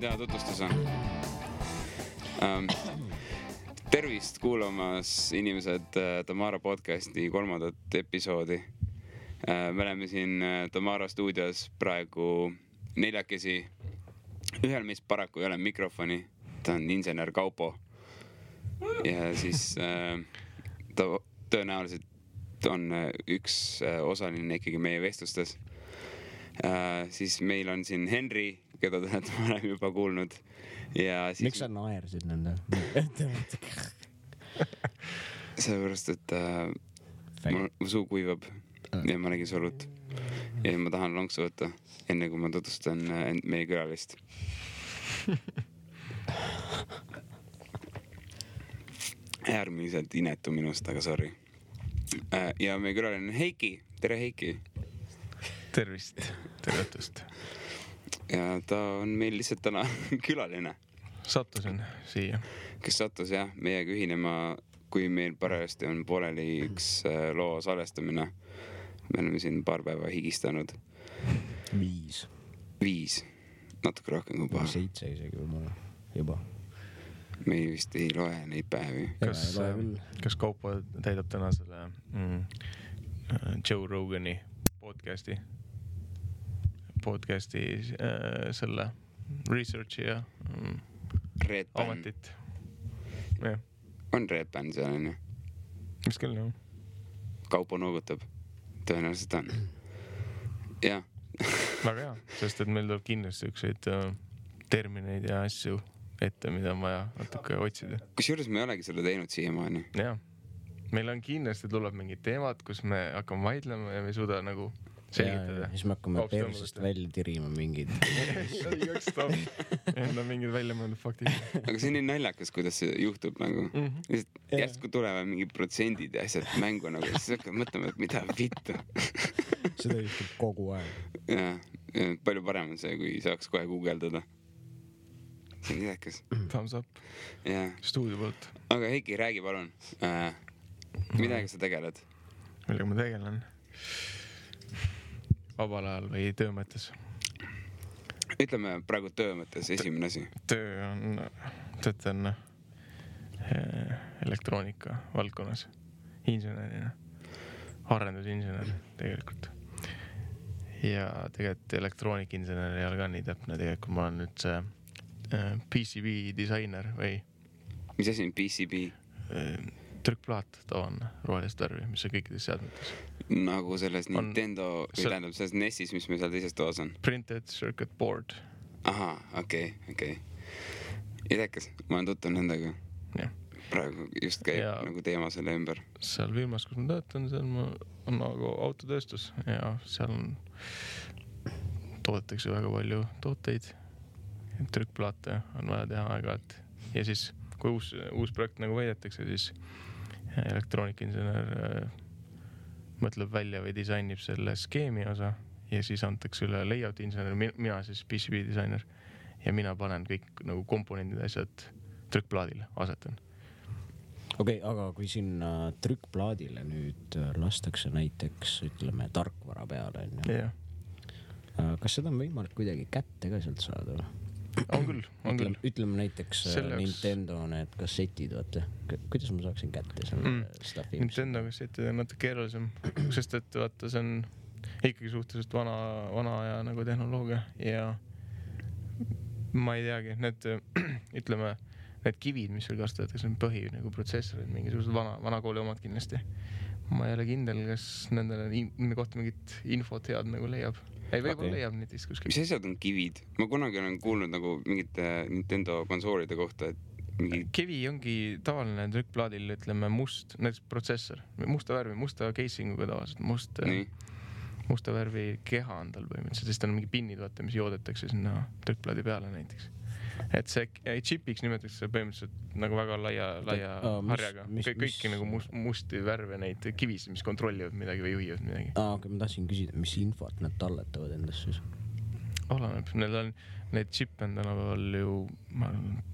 teha tutvustuse. Tervist kuulamas inimesed Tamara podcasti 3. episoodi. Me oleme siin Tamara stuudios praegu 4. Ühel meist paraku ei ole mikrofoni. Ta on insener Kaupo. Ja siis ta tõenäoliselt on üks osaline ikkagi meie vestlustes. Siis meil on siin Henri, keda te olete varem juba kuulnud. Ja siis... Miks sa naersid nende? Sellepärast, et mu suu kuivab ja ma nägin solut. Ja ma tahan lonksu võtta, enne kui ma tutvustan meie külalist. Äärmiselt inetu minust, aga sorry. Ja meie külaline on Heiki. Tere, Heiki! Tervist, tervetust. Ja ta on meil lihtsalt täna külaline. Sattusin siia. Kes sattus jah, meiega ühinema, kui meil parajasti on pooleli üks loo salestamine. Me oleme siin paar päeva higistanud. 5. Natuke rohkem kui paar. 7 isegi juba. Me vist ei loe neid päevi. Kas Kaupo täidab täna selle Joe Rogani podcasti selle researchi ja ametit. Ja. On Red Band seal, on ju? Mis küll, jah? Kaupo noogutab. Tõenäoliselt on. Ja. Väga hea, sest et meil tuleb kindlasti ükseid termineid ja asju ette, mida on vaja natuke otsida. Kusjuures me ei olegi seda teinud siiamaani. Jah. Meil on kindlasti tuleb mingid teemad, kus me hakkame vaidlema ja me ei suuda nagu selgitada. Ja siis me hakkame persist välja tirima mingid. Enda mingid välja mõeldud faktid. Aga see on nii naljakas, kuidas see juhtub nagu. Järsku tulevad mingid protsendid ja asjad mängu nagu. Siis hakkad mõtlema, et mida vittu. Seda juhtub kogu aeg. Ja, palju parem on see, kui saaks kohe guugeldada. See on nidakas. Thumbs up. Ja. Stuudio poolt. Aga Heiki, räägi palun. Midagi sa tegeled? Millega ma tegelen? Vabal ajal või töö mõttes? Ütleme praegu töö mõttes esimene asi. Töötan elektroonika valdkonnas. Insenerina. Arendusinsener tegelikult. Ja tegelikult elektroonikinsener ei ole ka nii täpne. Tegelikult ma olen nüüd see PCB disainer või... Mis asi on PCB? Trükkplaat tavaline rohelist värvi, mis on kõikides seadmetes. Nagu selles Nintendo, või tähendab selles NES-is, mis meil seal teises toas on? Printed circuit board. Aha, okei. Idekas, ma olen tuttu nendega. Ja. Praegu just käib nagu teema selle ümber. Seal firmas, kus ma töötan, seal on nagu autotööstus ja seal toodetakse väga palju tooteid. Trükkplaate on vaja teha aeg-ajalt. Ja siis, kui uus projekt nagu võidetakse, siis elektroonikinsener mõtleb välja või disainib selle skeemi osa ja siis antakse üle layout insener, mina siis PCB disainer ja mina panen kõik nagu komponendid asjad trükkplaadile, asetan. Okei, aga kui sinna trükkplaadile nüüd lastakse näiteks, ütleme, tarkvara peale, ja. Kas seda on võimalik kuidagi kätte ka sealt saada? On küll. Ütleme näiteks Nintendo need kassetid, vaata. Kuidas ma saaksin kätte selle staffi? Nintendo kassetid on natuke keerulisem, sest et vaata, see on ikkagi suhteliselt vana aja nagu tehnoloogia ja ma ei teagi, need kivid, mis seal kasutatakse, on põhi nagu protsessorid, mingisugused vana kooli omad kindlasti. Ma ei ole kindel, kas nende kohta mingit infot head nagu leiab. Ei, võib-olla leiab netist kuskil. Mis asjad on kivid? Ma kunagi olen kuulnud nagu mingite Nintendo konsoolide kohta, et Kivi ongi tavaline trükkplaadil, ütleme, näiteks protsessor. Musta värvi, musta casinguga tavaliselt. Musta värvi keha on tal põhimõtteliselt. Siis on mingi pinnid, vaata, mis joodetakse sinna trükkplaadi peale näiteks. Et see chipiks nimetatakse põhimõtteliselt nagu väga laia harjaga. Kõiki nagu musti värve neid kivis, mis kontrollivad midagi või juhivad midagi. Aga ma tahtsin küsida, mis infot nad talletavad endast siis? Oleneb. Need chip on tänapäeval ju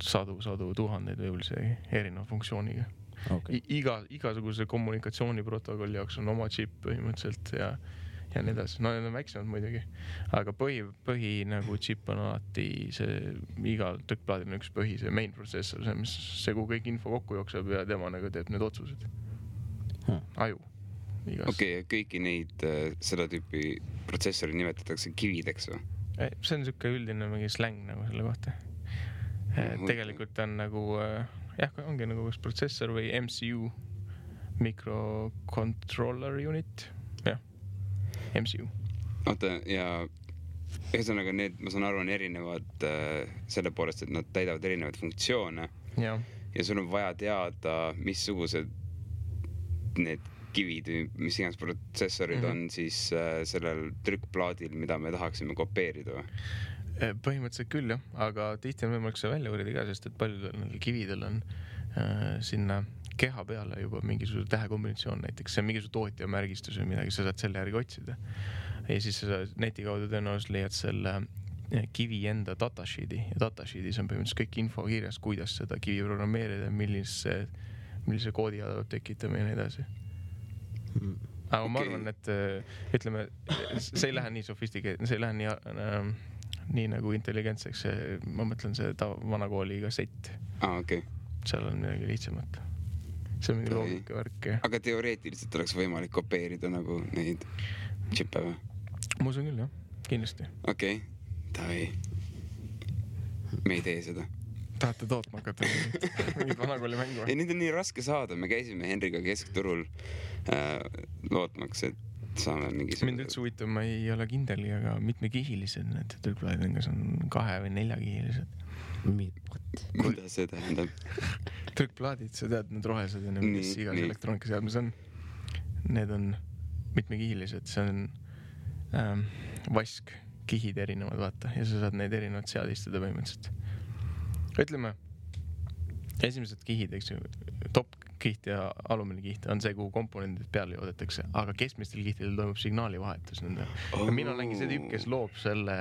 sadu tuhandeid võib-olla see erineva funktsiooniga. Okay. Igasuguse kommunikatsiooniprotokolli jaoks on oma chip põhimõtteliselt ja ja nii edasi. No need on väiksemad muidugi, aga põhi nagu chip on alati see, igal trükkplaadil on üks põhi, see main processor, see, kuhu kõik info kokku jookseb ja tema nagu teeb need otsused. Aju. Okei, kõiki neid seda tüüpi protsessori nimetatakse kivideks või? See on siuke üldine mingi släng nagu selle kohta. Tegelikult on nagu, ongi nagu üks protsessor või MCU, microcontroller unit, MCU. Oota, ja ühesõnaga need, ma saan aru, on erinevad selle poolest, et nad täidavad erinevaid funktsioone ja sul on vaja teada, missugused need kivid, mis iganes protsessorid on siis sellel trükkplaadil, mida me tahaksime kopeerida või? Põhimõtteliselt küll jah, aga tihti on võimalik see välja uurida ka, sest et paljudel kividel on sinna keha peale juba mingisugune tähekombinatsioon näiteks, see on mingisugune tootja märgistus või midagi, sa saad selle järgi otsida. Ja siis sa neti kaudu tõenäoliselt leiad selle kivi enda datasheet'i ja datasheet'is on põhimõtteliselt kõik info kirjas, kuidas seda kivi programmeerida, millise koodi peab tekitama ja nii edasi. Aga ma arvan, et ütleme, see ei lähe nii sofistikeeritud, see ei lähe nii nagu intelligentseks, ma mõtlen see vanakooli kassett. Okay. Seal on midagi lihtsamat. See on mingi loogika värk. Aga teoreetiliselt oleks võimalik kopeerida nagu neid chippe või? Ma usun küll, jah. Kindlasti. Okei, tavai. Me ei tee seda. Tahate tootma hakata mingit vanakooli mängu? Ei, neid on nii raske saada. Me käisime Henriga keskturul lootmaks, et saame mingisugune... Mind üldse huvitav, ma ei ole kindeli, aga mitmekihilised need trükkplaadid, kas on 2 või 4-kihilised. Kuidas see tähendab? Trükkplaadid, sa tead, need rohelised ja mis igas elektroonikaseadmes on. Need on mitmekihilised, see on vask-kihid erinevad, vaata, ja sa saad neid erinevad seadistada põhimõtteliselt. Ütleme, esimesed kihid, eks ju, top-kiht ja alumine kiht on see, kuhu komponendid peale joodetakse, aga keskmistel kihtidel toimub signaalivahetus nende. Ja mina olengi see tüüp, kes loob selle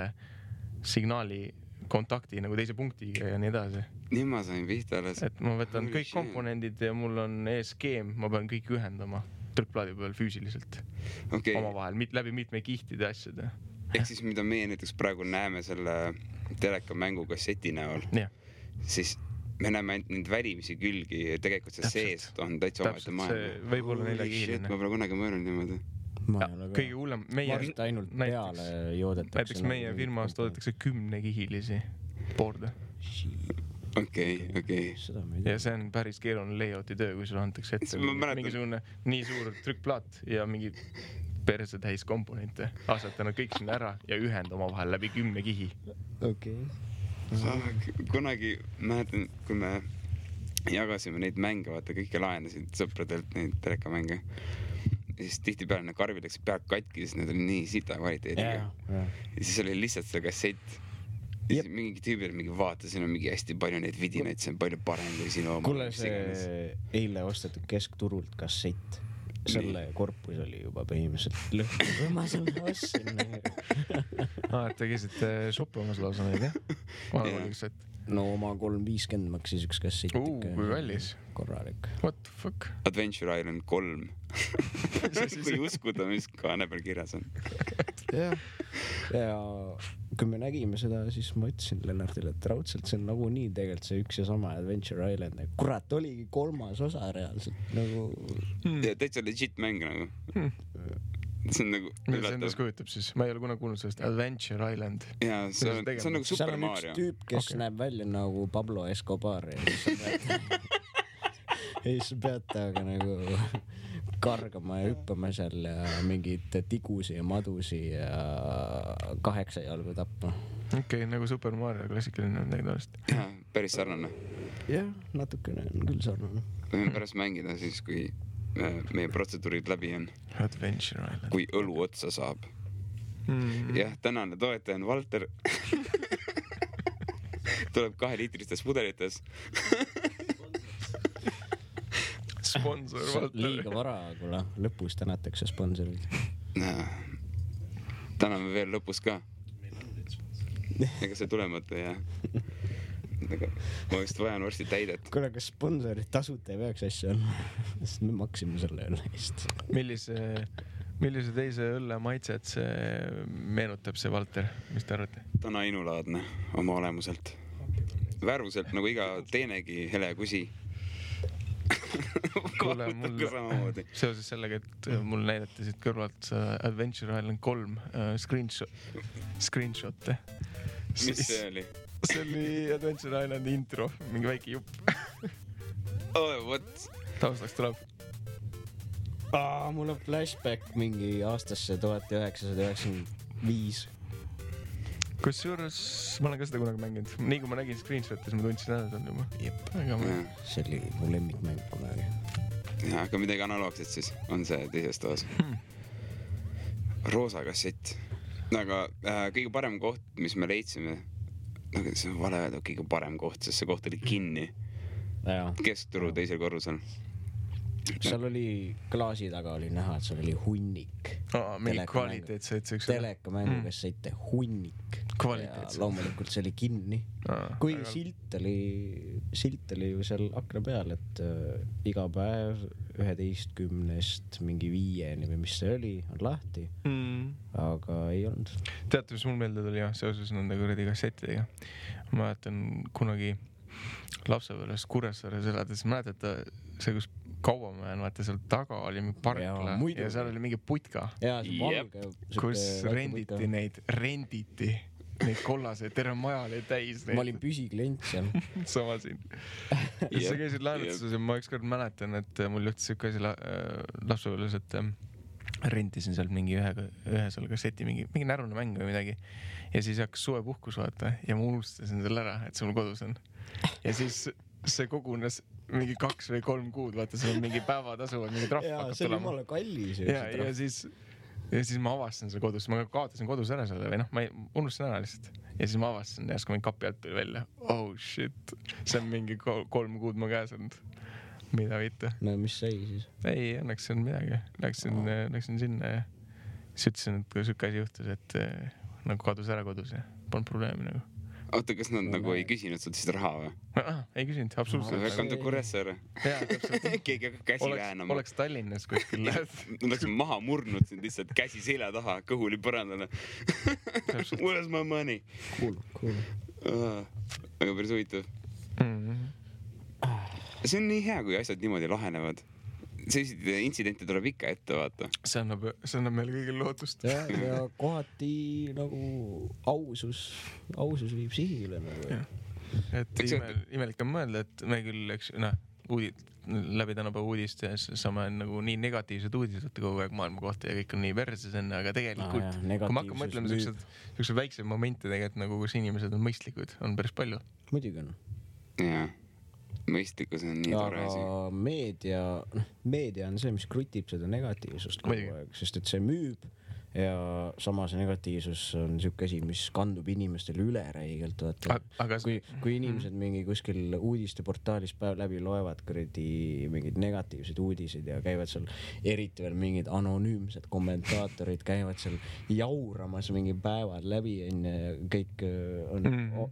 signaali kontakti nagu teise punktiga ja nii edasi. Nii ma sain pihta alles. Et ma võtan kõik komponendid ja mul on skeem, ma pean kõik ühendama trükkplaadi peal füüsiliselt omavahel, läbi mitme kihtide asjade. Ehk siis, mida meie näiteks praegu näeme selle telekamängu kasseti näol, siis me näeme ainult neid välimisi külgi ja tegelikult see sees on täitsa omaette maailma. See võib olla 4-kihiline. Ma pole kunagi mõelnud niimoodi. Kõige hullem, ainult peale joodetakse. Näiteks meie firmas toodetakse 10-kihilisi board'e. Okei. Ja see on päris keeruline layouti töö, kui sulle antakse ette mingisugune nii suur trükkplaat ja mingi perse täis komponente. Asjata nad kõik sinna ära ja ühenda omavahel läbi 10 kihi. Okei. Kunagi mäletan, kui me jagasime neid mänge, vaata kõike laenasid sõpradelt neid telekamänge. Ja siis tihti peale need karvid läks pealt katki, siis need oli nii sita kvaliteediga. Ja siis oli lihtsalt see kassett. Ja siis mingi tüübil mingi vaata, siin on mingi hästi palju neid vidinaid, see on palju parem kui sinu oma. Kuule, see eile ostetud keskturult kassett. Selle korpus oli juba põhimõtteliselt lõhku, kui ma selle ostsin. Et te käisite shoppamas lausa neid, jah? No oma 350 maksis üks kassett. Kui kallis. Korralik. What the fuck? Adventure Island 3. Kui uskuda, mis kaane peal kirjas on. Ja kui me nägime seda, siis ma ütlesin Lennartile, et raudselt see on nagu nii tegelikult see üks ja sama Adventure Island. Kurat, oligi 3. osa reaalselt. Ja täitsa legit mäng nagu. See on nagu... Mida see endas kujutab siis? Ma ei ole kunagi kuulnud sellest Adventure Island. Jaa, see on nagu Super Mario. Seal on üks tüüp, kes näeb välja nagu Pablo Escobar. Ja siis peate aga nagu kargama ja hüppama seal ja mingid tigusi ja madusi ja 8 jalgu tapma. Okei, nagu Super Mario klassikaline on tegelikult. Jaa, päris sarnane. Jah, natukene on küll sarnane. Võime pärast mängida siis, kui meie protseduurid läbi on. Adventure Island. Kui õlu otsa saab. Jah, tänane toetaja on Valter. Tuleb 2-liitristes pudelites. Sponsor Valter. Liiga vara, kuule. Lõpus tänatakse sponsorid. Täname veel lõpus ka. Ega see tulemata ja... Ma vist vajan varsti täidet. Kuule, kas sponsorid tasuta ei peaks asja on? Sest me maksime selle üle eest. millise teise õlle maitset see meenutab, see Valter, mis te arvate? Ta on ainulaadne oma olemuselt. Värvuselt nagu iga teinegi hele kusi. Kuule, mul seoses sellega, et mul näidati siit kõrvalt Adventure Island 3 screenshot'e. Mis see oli? See oli Adventure Islandi intro, mingi väike jupp. Oh, what? Taustaks tuleb. Mul on flashback mingi aastasse 1995. Kusjuures ma olen ka seda kunagi mänginud. Nii kui ma nägin screenshot'is, ma tundsin ära seal juba. Jep. See oli mu lemmikmäng kunagi. Ja, aga midagi analoogset siis on see teises toas. Roosa kassett. Aga kõige parem koht, mis me leidsime, see on vale öelda kõige parem koht, sest see koht oli kinni. Keskturu teisel korrusel. Seal oli klaasi taga oli näha, et seal oli hunnik. Mingi kvaliteetseid telekamängu kassette, hunnik. Kvaliteetseid. Loomulikult see oli kinni. Kui silt oli ju seal akna peal, et iga päev 11 mingi 5 või mis see oli, on lahti. Aga ei olnud. Teate, mis mul meelde tuli seoses nende kuradi kassettidega? Ma mäletan kunagi lapsepõlves Kuressaares elades, mäletate see, kus Kauamäen, vaata seal taga oli mingi parkla ja seal oli mingi putka, kus renditi neid kollaseid, terve maja oli täis neid. Ma olin püsiklient seal. Sama siin. Sa käisid laenutuses ja ma ükskord mäletan, et mul juhtis siuke asi lapsepõlves, et rentisin sealt mingi ühe seal kasseti, mingi närune mäng või midagi. Ja siis hakkas suvepuhkus vaata ja ma unustasin selle ära, et see mul kodus on. Ja siis see kogunes mingi 2 või 3 kuud, vaata see on mingi päevatasu, mingi trahv hakkab tulema. See oli jumala kallis. Ja siis ma avastasin selle kodus, ma kaotasin kodus ära selle või ma unustasin ära lihtsalt. Ja siis ma avastasin ja kui mingi kapi alt tuli välja. Oh shit, see on mingi 3 kuud ma käes olnud. Mida võita? No mis sai siis? Ei, õnneks see on midagi. Läksin sinna ja siis ütlesin, et kui sükke asi juhtus, et nagu kadus ära kodus ja polnud probleemi nagu. Oota, kas nad nagu ei küsinud sult siis raha või? Ei küsinud, absoluutselt. Welcome to Kuressaare. Jaa, täpselt. Keegi hakkab käsi väänama. Oleks Tallinnas kuskil. Nad oleksin maha murnud sind lihtsalt käsi selja taha, kõhuli põrandale. Where's my money? Cool. Aga päris huvitav. See on nii hea, kui asjad niimoodi lahenevad. Selliseid intsidente tuleb ikka ette, vaata. See annab meile kõigil lootust. Ja kohati nagu ausus viib sihile nagu. Et imelik on mõelda, et me küll, eks, läbi tänapäeva uudist ja saame nagu nii negatiivsed uudised kogu aeg maailma kohta ja kõik on nii verses enne, aga tegelikult, kui ma hakkan mõtlema sellised väiksed momente tegelikult nagu, kus inimesed on mõistlikud, on päris palju. Muidugi on. Jaa. Mõistlikkus on nii tore asi. Aga meedia on see, mis krutib seda negatiivsust kogu aeg, sest et see müüb ja samas negatiivsus on siuke asi, mis kandub inimestele üle räigelt. Kui inimesed mingi kuskil uudisteportaalis päev läbi loevad mingeid negatiivseid uudiseid ja käivad seal, eriti veel mingid anonüümsed kommentaatorid käivad seal jauramas mingi päevad läbi ja kõik on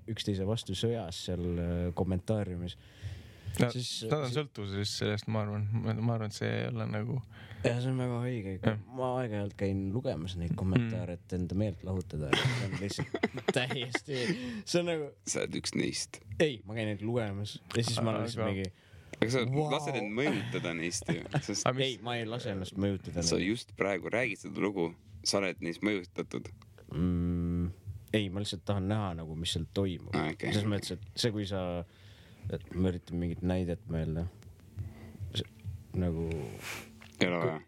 üksteise vastu sõjas seal kommentaariumis. Nad on sõltuvuses sellest, ma arvan, et see ei ole nagu... Ja see on väga õige. Ma aeg-ajalt käin lugemas neid kommentaare, et enda meelt lahutada. See on lihtsalt täiesti... See on nagu... Sa oled üks neist. Ei, ma käin neid lugemas. Ja siis ma olen lihtsalt mingi... Aga sa lased end mõjutada neist ju. Ei, ma ei lase ennast mõjutada. Sa just praegu räägid seda lugu. Sa oled neist mõjutatud. Ei, ma lihtsalt tahan näha nagu, mis seal toimub. Selles mõttes, et see, kui sa... Et ma üritan mingit näidet meelde. Nagu... Ei ole vaja.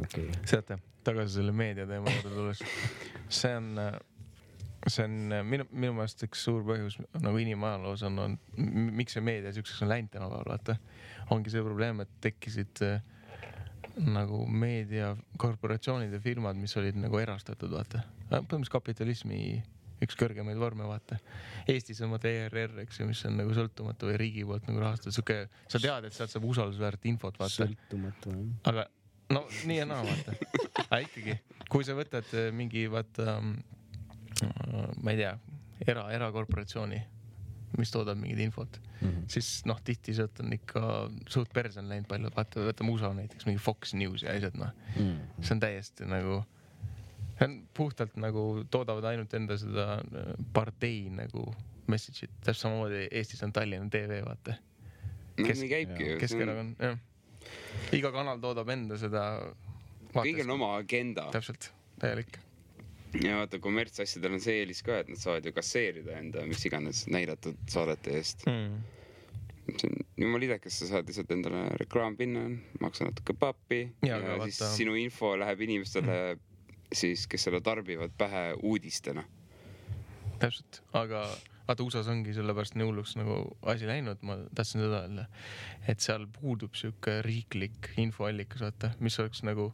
Okay. Seate, tagasi selle meedia teema juurde tulles. See on minu meelest üks suur põhjus nagu inimajaloos on, miks see meedia siukseks on läinud tänapäeval, vaata. Ongi see probleem, et tekkisid nagu meediakorporatsioonid ja firmad, mis olid nagu erastatud, vaata. Põhimõtteliselt kapitalismi üks kõrgemaid vorme, vaata. Eestis on ERR, eks ju, mis on nagu sõltumatu või riigi poolt nagu rahastatud. Sa tead, et sealt saab usaldusväärt infot, vaata. Sõltumatu, jah. Aga no nii ja naa, vaata. Aga ikkagi, kui sa võtad mingi, vaata, ma ei tea, erakorporatsiooni mis toodab mingid infot, siis noh, tihti sealt on ikka suht perse on läinud palju, võtame USA näiteks, mingi Fox News ja asjad, noh. See on täiesti nagu, see on puhtalt nagu toodavad ainult enda seda partei nagu message'it, täpselt samamoodi Eestis on Tallinna TV, vaata. Nii käibki. Keskerakond, jah. Iga kanal toodab enda seda kõigil on oma agenda. Täpselt, täielik. Ja vaata, kommertsasjadel on see eelis ka, et nad saavad ju kasseerida enda mis iganes näidatud saadete eest. See on jumal idekas, sa saad lihtsalt endale reklaam pinna, maksa natuke pappi ja siis sinu info läheb inimestele siis, kes seda tarbivad pähe uudistena. Täpselt, aga vaata USAs ongi sellepärast nii hulluks nagu asi läinud, ma tahtsin seda öelda, et seal puudub siuke riiklik infoallikas, vaata, mis oleks nagu,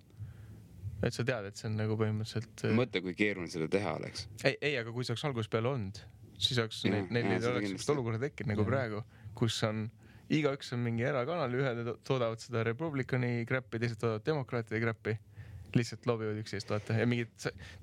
et sa tead, et see on nagu põhimõtteliselt... Mõtle, kui keeruline seda teha oleks. Ei, aga kui see oleks alguses peale olnud, siis oleks neil oleks sellist olukorda tekkinud nagu praegu, kus on, igaüks on mingi erakanal, ühed toodavad seda Republicani kräppi, teised toodavad demokraatide kräppi, lihtsalt lobivad üksteist, vaata, ja mingid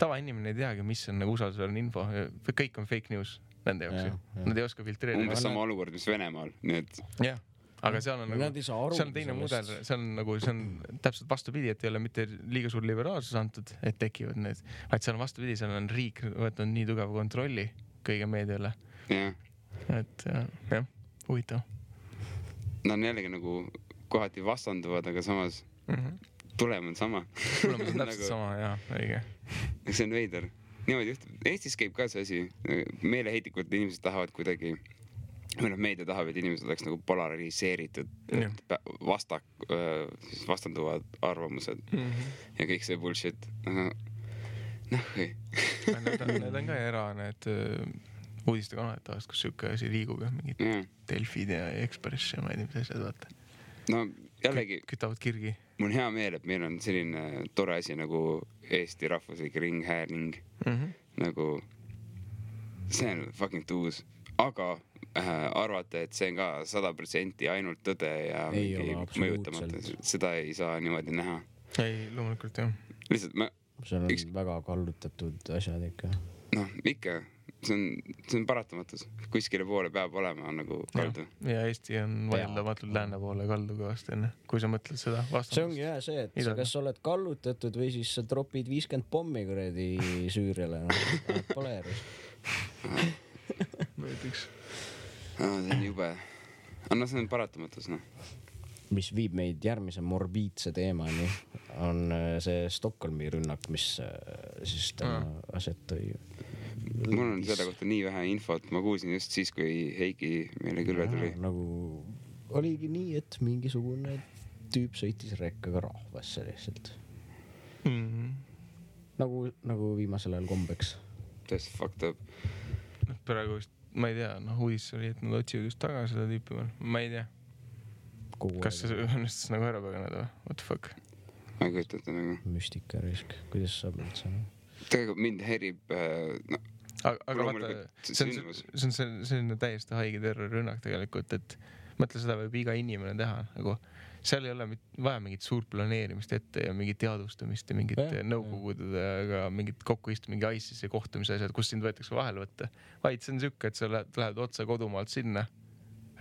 tavainimene ei teagi, mis on nagu usaldusväärne info, kõik on fake news nende jaoks ju, nad ei oska filtreerida. Umbes sama olukord, mis Venemaal, nii et... Jah. Aga seal on nagu, see on teine mudel, see on nagu, see on täpselt vastupidi, et ei ole mitte liiga suur liberaalsus antud, et tekivad need, vaid seal on vastupidi, seal on riik võtnud nii tugeva kontrolli kõige meediale. Et jah, huvitav. Nad on jällegi nagu kohati vastanduvad, aga samas tulem on sama. Tulem on täpselt sama, jah, õige. See on veider. Niimoodi juhtub. Eestis käib ka see asi, meeleheitlikult inimesed tahavad kuidagi meedia tahab, et inimesed oleks nagu polariseeritud, vastanduvad arvamused ja kõik see bullshit. Ei. Need on ka need uudistekanalid tahast, kus siuke asi liigub ja mingid Delfid ja Express ja ma ei tea, mis asjad vaata. No jällegi kütavad kirgi. Mul on hea meel, et meil on selline tore asi nagu Eesti rahvuslik ringhääling. Nagu see on fucking tuus, aga arvata, et see on ka 100% ainult tõde ja mingi mõjutamata. Seda ei saa niimoodi näha. Ei, loomulikult jah. Lihtsalt seal on väga kallutatud asjad ikka. Noh, ikka. See on paratamatus. Kuskile poole peab olema nagu kaldu. Ja Eesti on vaieldamatul lääne poole kaldu kõvasti enne, kui sa mõtled seda vastandust. See ongi jah see, et sa kas oled kallutatud või siis sa tropid 50 pommi kuredi Süüriale. Pole järjus. Näiteks. See on jube. Anna see on paratamatus, noh. Mis viib meid järgmise morbiidse teemani, on see Stockholmi rünnak, mis siis täna aset tõi. Mul on seda kohta nii vähe infot, ma kuulsin just siis, kui Heiki meile külla tuli. Nagu oligi nii, et mingisugune tüüp sõitis rekkaga rahvasse lihtsalt. Nagu viimasel ajal kombeks. Täiesti fucked up. Praegu vist, ma ei tea, uudis oli, et nad otsivad just taga seda tüüpi veel. Ma ei tea. Kas see õnnestus nagu ära paganeda või? What the fuck? Ma ei kujutada nagu. Müstika risk. Kuidas saab üldse? Tegelikult mind herib... Aga vaata, see on selline täiesti haige terrorirünnak tegelikult, et mõtle seda võib iga inimene teha. Nagu, seal ei ole vaja mingit suurt planeerimist ette ja mingit teadvustamist ja mingit nõukogudega ja mingit kokkuistu, mingi ISIS-i kohtumise asjad, kus sind võetakse vahel võtta. Vaid see on siuke, et sa lähed otsa kodumaalt sinna,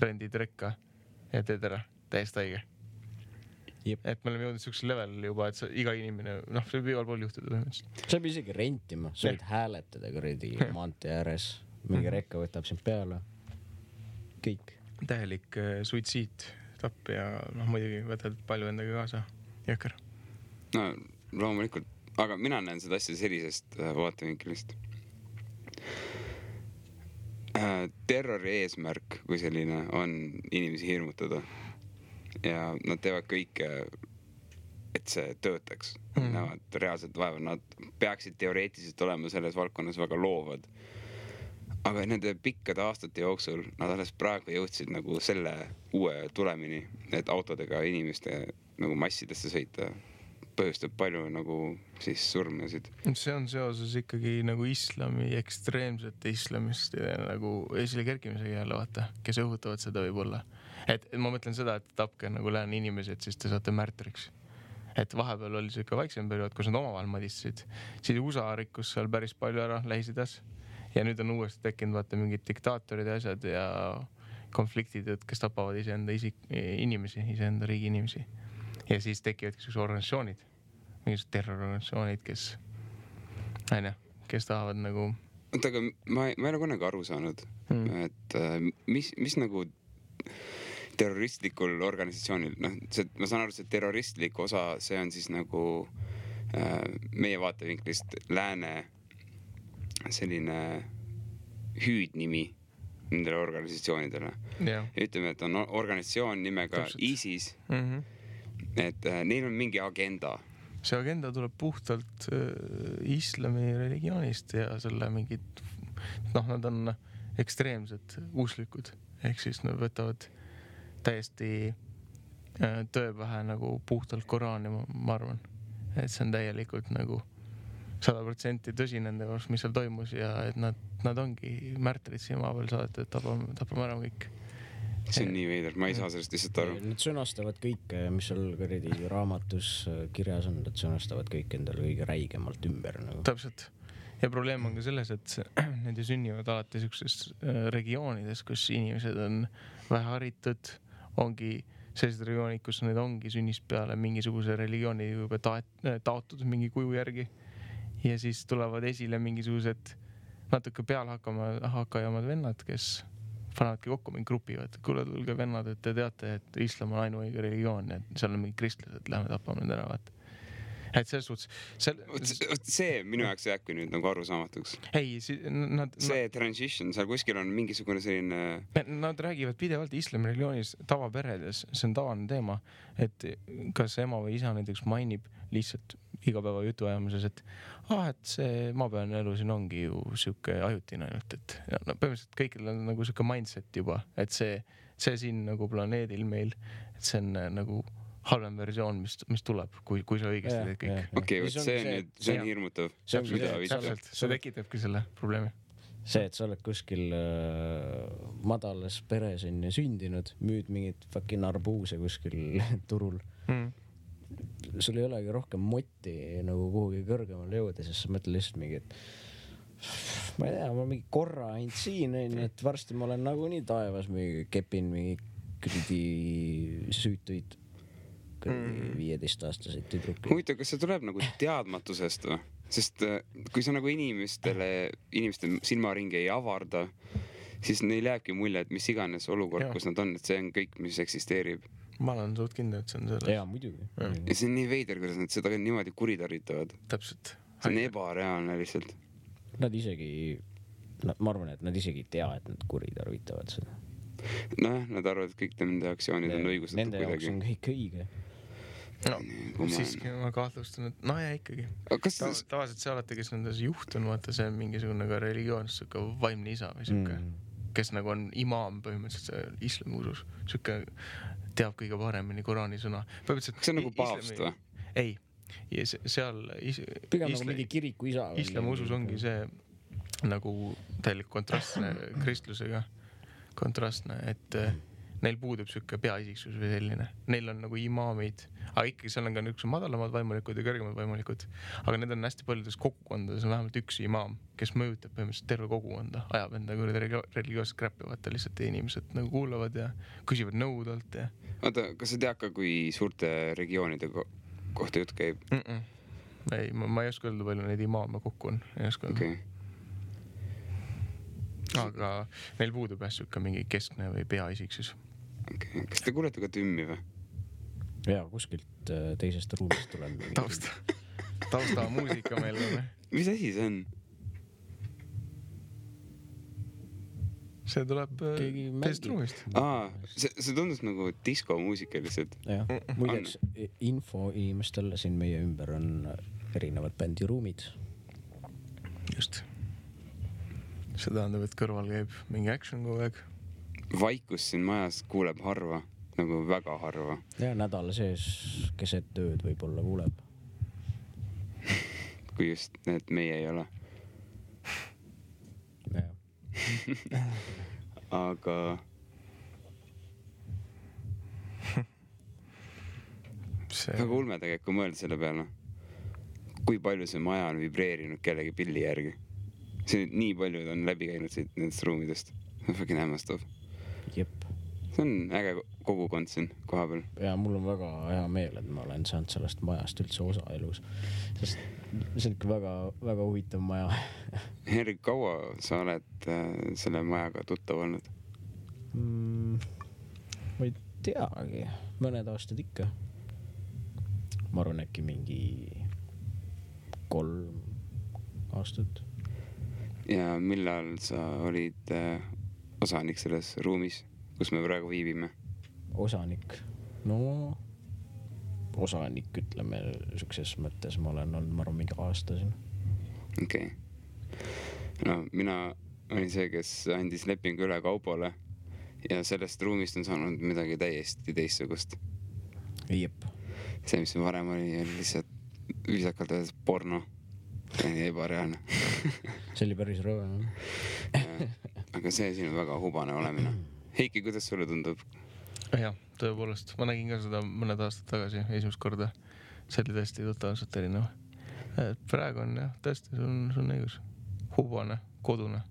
rendid rekka ja teed ära. Täiesti haige. Et me oleme jõudnud siuksel level juba, et iga inimene, see võib igal pool juhtuda. See võib isegi rentima, sa võid hääletada kuradi maantee ääres, mingi rekka võtab sind peale. Kõik. Täielik suitsiid, tapp ja muidugi võtad palju endaga kaasa. Jõkker. No loomulikult, aga mina näen seda asja sellisest vaatevinklist. Terrori eesmärk, kui selline on inimesi hirmutada. Ja nad teevad kõike, et see töötaks. Näevad reaalselt vaeva. Nad peaksid teoreetiliselt olema selles valdkonnas väga loovad. Aga nende pikkade aastate jooksul nad alles praegu jõudsid nagu selle uue tulemini, et autodega inimeste nagu massidesse sõita põhjustab palju nagu siis surmasid. See on seoses ikkagi nagu islami, ekstreemsete islamist nagu esile kerkimisega jälle vaata, kes õhutavad seda võib-olla. Et ma mõtlen seda, et tapke nagu lääne inimesed, siis te saate märtriks. Et vahepeal oli see ikka vaiksem periood, kus nad omavahel madistasid. Siis USA rikkus seal päris palju ära Lähis-Idas ja nüüd on uuesti tekkinud vaata mingid diktaatorid ja asjad ja konfliktid, kes tapavad iseenda inimesi, iseenda riigi inimesi. Ja siis tekivadki sellised organisatsioonid, mingisugused terrororganisatsioonid, kes tahavad nagu... Oota, aga ma ei ole kunagi aru saanud, et mis nagu terroristlikul organisatsioonil, ma saan aru, see terroristlik osa, see on siis nagu meie vaatevinklist lääne selline hüüdnimi nendele organisatsioonidele. Ja ütleme, et on organisatsioon nimega ISIS, et neil on mingi agenda. See agenda tuleb puhtalt islami religioonist ja selle mingid, nad on ekstreemsed usklikud, ehk siis nad võtavad täiesti tõepähe nagu puhtalt Koraani, ma arvan, et see on täielikult nagu 100% tõsi nende jaoks, mis seal toimus ja et nad ongi märtrid siin maa peal saadetud, et tapame ära kõik. See on nii veider, ma ei saa sellest lihtsalt aru. Nad sõnastavad kõike, mis seal raamatus kirjas on, nad sõnastavad kõik endale kõige räigemalt ümber. Nagu. Täpselt. Ja probleem on ka selles, et need ju sünnivad alati sellises regioonides, kus inimesed on väheharitud, ongi sellised regioonid, kus need ongi sünnist peale mingisuguse religiooni juba taotud mingi kuju järgi. Ja siis tulevad esile mingisugused natuke pealhakkajamad vennad, kes panevadki kokku mingi grupi, et kuule tulge vennad, et te teate, et islam on ainuõige religioon, et seal on mingi kristlased, lähme tapame need ära, et selles suhtes see minu jaoks jääbki nüüd nagu arusaamatuks. See transition, seal kuskil on mingisugune selline... Nad räägivad pidevalt islami religioonis tavaperedes, see on tavaline teema, et kas ema või isa näiteks mainib lihtsalt igapäeva jutuajamises, et see maapealne elu siin ongi ju siuke ajutine ainult, et põhimõtteliselt kõikidel on nagu siuke mindset juba, et see siin nagu planeedil meil, et see on nagu halvem versioon, mis tuleb, kui sa õigesti teed kõik. Okei, see on hirmutav. See tekitabki selle probleemi. See, et sa oled kuskil madalas peres on sündinud, müüd mingit fucking arbuuse kuskil turul. Sul ei olegi rohkem motti nagu kuhugi kõrgemale jõuda, sest sa mõtled lihtsalt mingi, et ma ei tea, ma mingi korra ainult siin, et varsti ma olen nagu nii taevas, mingi kepin mingi kridi süütuid 15-aastaseid tüdruki. Huvitav, kas see tuleb nagu teadmatusest või? Sest kui sa nagu inimeste silmaringi ei avarda, siis neil jääbki mulje, et mis iganes olukord, kus nad on, et see on kõik, mis eksisteerib. Ma olen suht kindel, et see on selles. Jaa, muidugi. Ja see on nii veider, kuidas nad seda niimoodi kuritarvitavad. Täpselt. See on ebareaalne lihtsalt. Nad isegi, ma arvan, et nad isegi ei tea, et nad kuritarvitavad seda. Nad arvavad, et kõik nende aktsioonid on õigustatud nende jaoks on kõik õige. Siiski ma kahtlustan, et ja ikkagi. Tavaliselt see alati, kes nendes juht on, vaata, see on mingisugune ka religioon, siuke vaimne isa või siuke, kes nagu on imaam põhimõtteliselt islami usus. Siuke teab kõige paremini Koraani sõna. Kas see on nagu paavst või? Ei. Ja seal pigem nagu mingi kiriku isa. Islami usus ongi see nagu täielik kontrastne kristlusega. Kontrastne, et neil puudub siuke peaisiksus või selline. Neil on nagu imaamid, aga ikkagi seal on ka niisugused madalamad vaimulikud ja kõrgemad vaimulikud. Aga need on hästi paljudes kogukondades on vähemalt üks imaam, kes mõjutab põhimõtteliselt terve kogukonda, ajab enda religioosset kräppi, vaata lihtsalt inimesed nagu kuulavad ja küsivad nõudalt. Ja... Oota, kas sa tead ka, kui suurte regioonide kohta jutt käib? Ei, ma ei oska öelda, palju neid imaame kokku on. Ei oska öelda. Aga neil puudub siuke mingi keskne või peaisiksus. Okay. Kas te kuulete ka tümmi või? Jaa, kuskilt teisest ruumist tuleb. Tausta muusika meil on. Mis asi see on? See tuleb teisest ruumist. See tundus nagu diskomuusika lihtsalt. Jah, muideks info inimestel siin meie ümber on erinevad bändiruumid. Just. See tähendab, et kõrval käib mingi action kogu aeg. Vaikus siin majas kuuleb harva, nagu väga harva. Ja nädala sees keset tööd võib-olla kuuleb. Kui just need meie ei ole. Aga... Väga ulme tegelikult, kui mõelda selle peale. Kui palju see maja on vibreerinud kellegi pilli järgi. see nii paljud on läbi käinud siit nendest ruumidest. See on fucking hämmastav. Jep. See on äge kogukond siin koha peal. Ja mul on väga hea meel, et ma olen saanud sellest majast üldse osa elus. Sest see on ikka väga, väga huvitav maja. Henrik, kaua sa oled selle majaga tuttav olnud? Ma ei teagi. Mõned aastad ikka. Ma arvan äkki mingi 3 aastat. Ja millal sa olid osanik selles ruumis, kus me praegu viibime? Osanik? No, osanik ütleme sukses mõttes ma olen olnud, ma arvan, mingi aasta siin. Okei. No, mina olin see, kes andis lepingu üle Kaupole ja sellest ruumist on saanud midagi täiesti teistsugust. Jep. See, mis varem oli lihtsalt viisakalt öeldes porno. Ebareaalne. See oli päris rõve. Aga see siin on väga hubane olemine. Heiki, kuidas sulle tundub? Jah, tõepoolest. Ma nägin ka seda mõned aastad tagasi esimest korda. See oli tõesti totaalselt erinev. Praegu on jah, tõesti, see on õigus. Hubane, kodune.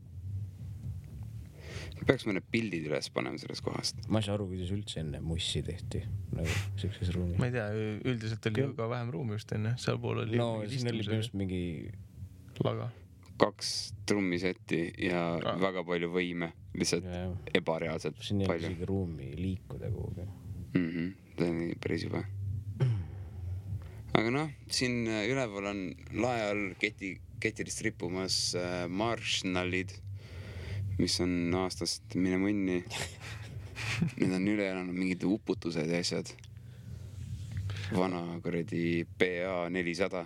Peaks mõne pildid üles panema sellest kohast. Ma ei saa aru, kuidas üldse enne mussi tehti. Nagu sellises ruumis. Ma ei tea, üldiselt oli ju ka vähem ruumi just enne. Seal pool oli siin oli just mingi laga. 2 trummisetti ja väga palju võime. Lihtsalt ebareaalselt palju. Siin ei ole isegi ruumi liikuda kuhugi. See on päris juba. Aga noh, siin üleval on lae all ketirist rippumas marshallid, mis on aastast mine mõnni. Need on üle elanud mingid uputused ja asjad. Vana kuradi PA 400.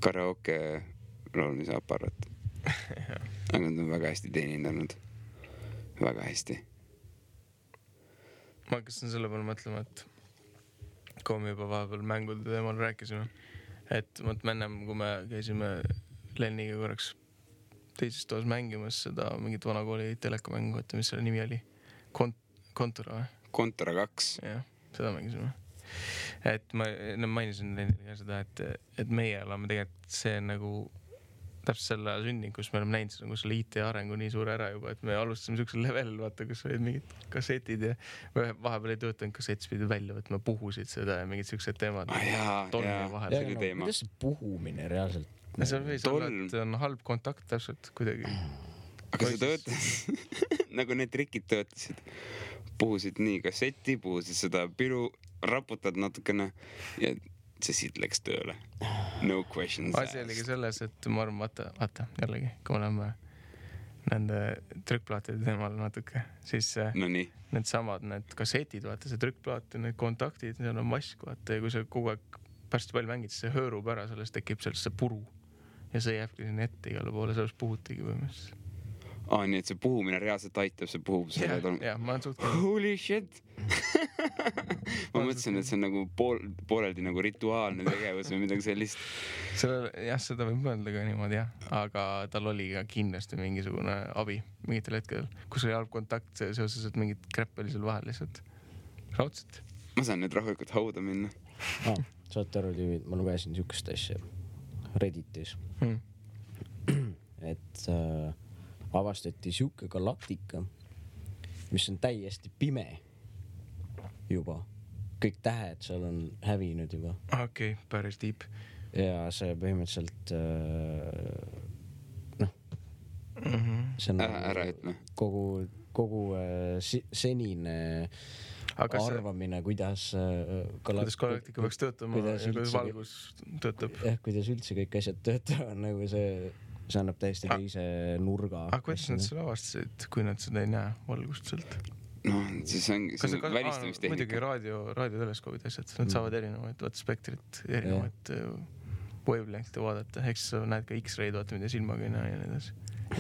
Karaoke laulmise aparaat. Aga nad on väga hästi teenindanud. Väga hästi. Ma hakkasin selle peale mõtlema, et kui me juba vahepeal mängude teemal rääkisime, et ennem, kui me käisime Lenniga korraks teises toas mängimas seda mingit vanakooli telekamängu, et mis selle nimi oli? Kontura või? Kontura 2. Jah, seda mängisime. Et ma mainisin Lennile seda, et meie oleme tegelikult see nagu täpselt selle sündinud, kus me oleme näinud seda, kus selle IT arengu nii suur ära juba, et me alustasime sellisel level, vaata, kus olid mingid kassetid ja vahepeal ei töötanud kassett, pidid välja võtma, puhusid seda ja mingid sellised teemad. See oli teema. Kuidas see puhumine reaalselt? See võis olla, et on halb kontakt täpselt kuidagi. Aga see töötas, nagu need trikid töötasid. Puhusid nii kasseti, puhusid seda piru, raputad natukene ja see siit läks tööle. No questions asked. Asi oligi selles, et ma arvan, vaata, jällegi, kui me oleme nende trükkplaatide teemal natuke, siis need samad, need kassetid, vaata, see trükkplaat ja need kontaktid, seal on mask, vaata, ja kui see kogu aeg pärast palju mängid, siis see höörub ära, sellest tekib sellest see puru ja see jääbki sinna ette igale poole, sellest puhutigi põhimõtteliselt. Nii et see puhumine reaalselt aitab, see puhub selle ma olen suht holy shit! Ma mõtlesin, et see on nagu pooleldi nagu rituaalne tegevus või midagi sellist. Seda võib mõelda ka niimoodi, jah. Aga tal oli ka kindlasti mingisugune abi mingitel hetkedel, kus oli halb kontakt seoses, et mingid krepp oli seal vahel lihtsalt raudselt. Ma saan nüüd rahulikult hauda minna. Saate aru, tüüvid, ma lugesin sihukest asja Redditis. Et avastati sihuke galaktika, mis on täiesti pime juba. Kõik tähed seal on hävinud juba. Okei, päris deep. Ja see põhimõtteliselt see on ära ütle. Kogu senine arvamine, kuidas galaktika peaks töötama ja kuidas valgus töötab. Kuidas üldse kõik asjad töötavad, nagu see annab täiesti teise nurga. Aga kuidas nad selle avastasid, kui nad seda ei näe valgust sealt? No, siis on välistamistehnika. Muidugi raadioteleskoobid asjad, nad saavad erinevaid spektrit, erinevaid wavelength'e vaadata. Eks sa näed ka X-raid, vaata, mida silmaga ei näe ja need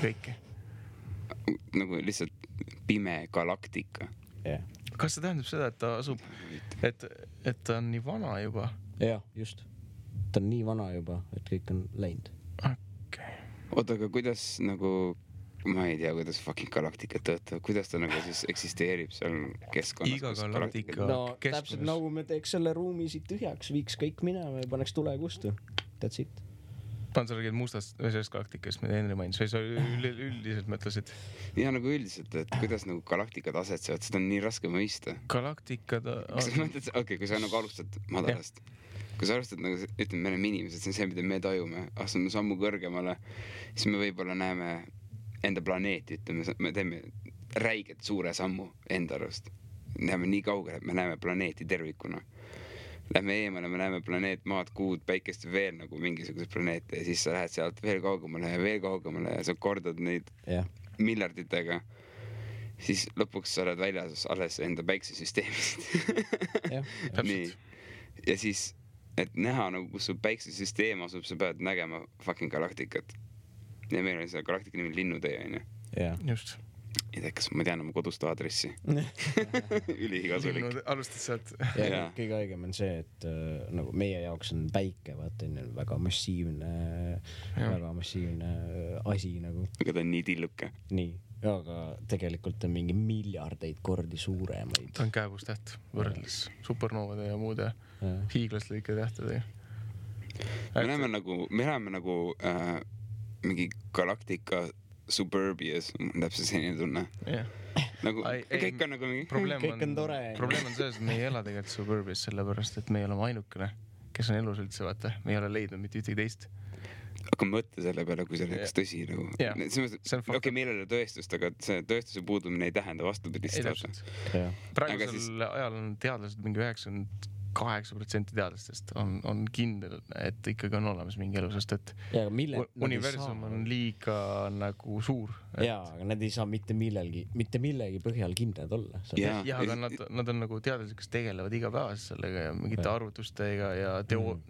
kõike. Nagu lihtsalt pime galaktika. Kas see tähendab seda, et ta asub, et ta on nii vana juba? Jah, just. Ta on nii vana juba, et kõik on läinud. Oota, aga kuidas nagu, ma ei tea, kuidas fucking galaktika töötab, kuidas ta nagu siis eksisteerib seal keskkonnas? Iga galaktika täpselt nagu me teeks selle ruumi siit tühjaks, viiks kõik minema ja paneks tule kustu. That's it. Pantsargid mustast või sellest galaktikast, mida Henri mainis, või sa üldiselt mõtlesid? Ja nagu üldiselt, et kuidas nagu galaktikad asetsevad, seda on nii raske mõista. Galaktikad Okei, kui sa nagu alustad madalast. Kui sa alustad nagu, ütleme, me oleme inimesed, see on see, mida me tajume. Astume sammu kõrgemale, siis me võib-olla näeme enda planeeti, ütleme, me teeme räiget suure sammu enda arust. Näeme nii kaugele, et me näeme planeeti tervikuna. Lähme eemale, me näeme planeet, maad, kuud, päikest veel nagu mingisugused planeete ja siis sa lähed sealt veel kaugemale ja sa kordad neid miljarditega. Siis lõpuks sa oled väljas alles enda päiksesüsteemist. Nii. Ja siis, et näha nagu, kus su päiksesüsteem asub, sa pead nägema fucking galaktikat. Ja meil oli see galaktika nimi Linnutee, on ju? Just. Ei tea, kas ma tean oma kodust aadressi. Ülikasulik. Alustad sealt. Ja kõige õigem on see, et nagu meie jaoks on päike, vaata, väga massiivne asi nagu. Aga ta on nii tilluke. Nii, aga tegelikult on mingi miljardeid kordi suuremaid. Ta on käevustäht võrreldes supernoovade ja muude hiiglaslike tähtedega. Me näeme nagu mingi galaktika Suburbias, täpselt selline tunne. Nagu, kõik on nagu mingi... Kõik on tore. Probleem on selles, et me ei ela tegelikult Suburbias sellepärast, et me ei ole ainukene, kes on elus üldse, vaata. Me ei ole leidnud mitte ühtegi teist. Aga mõtle selle peale, kui see oleks tõsi. Nagu. Okei, meil ei ole tõestust, aga see tõestuse puudumine ei tähenda vastupidist. Praegusel ajal on teadlased mingi 98% teadlastest on kindel, et ikkagi on olemas mingi elu, sest et universum on liiga nagu suur. Jaa, aga nad ei saa mitte millegi põhjal kindlad olla. Ja, aga nad on nagu teadlased, kes tegelevad igapäevast sellega ja mingite arvutustega ja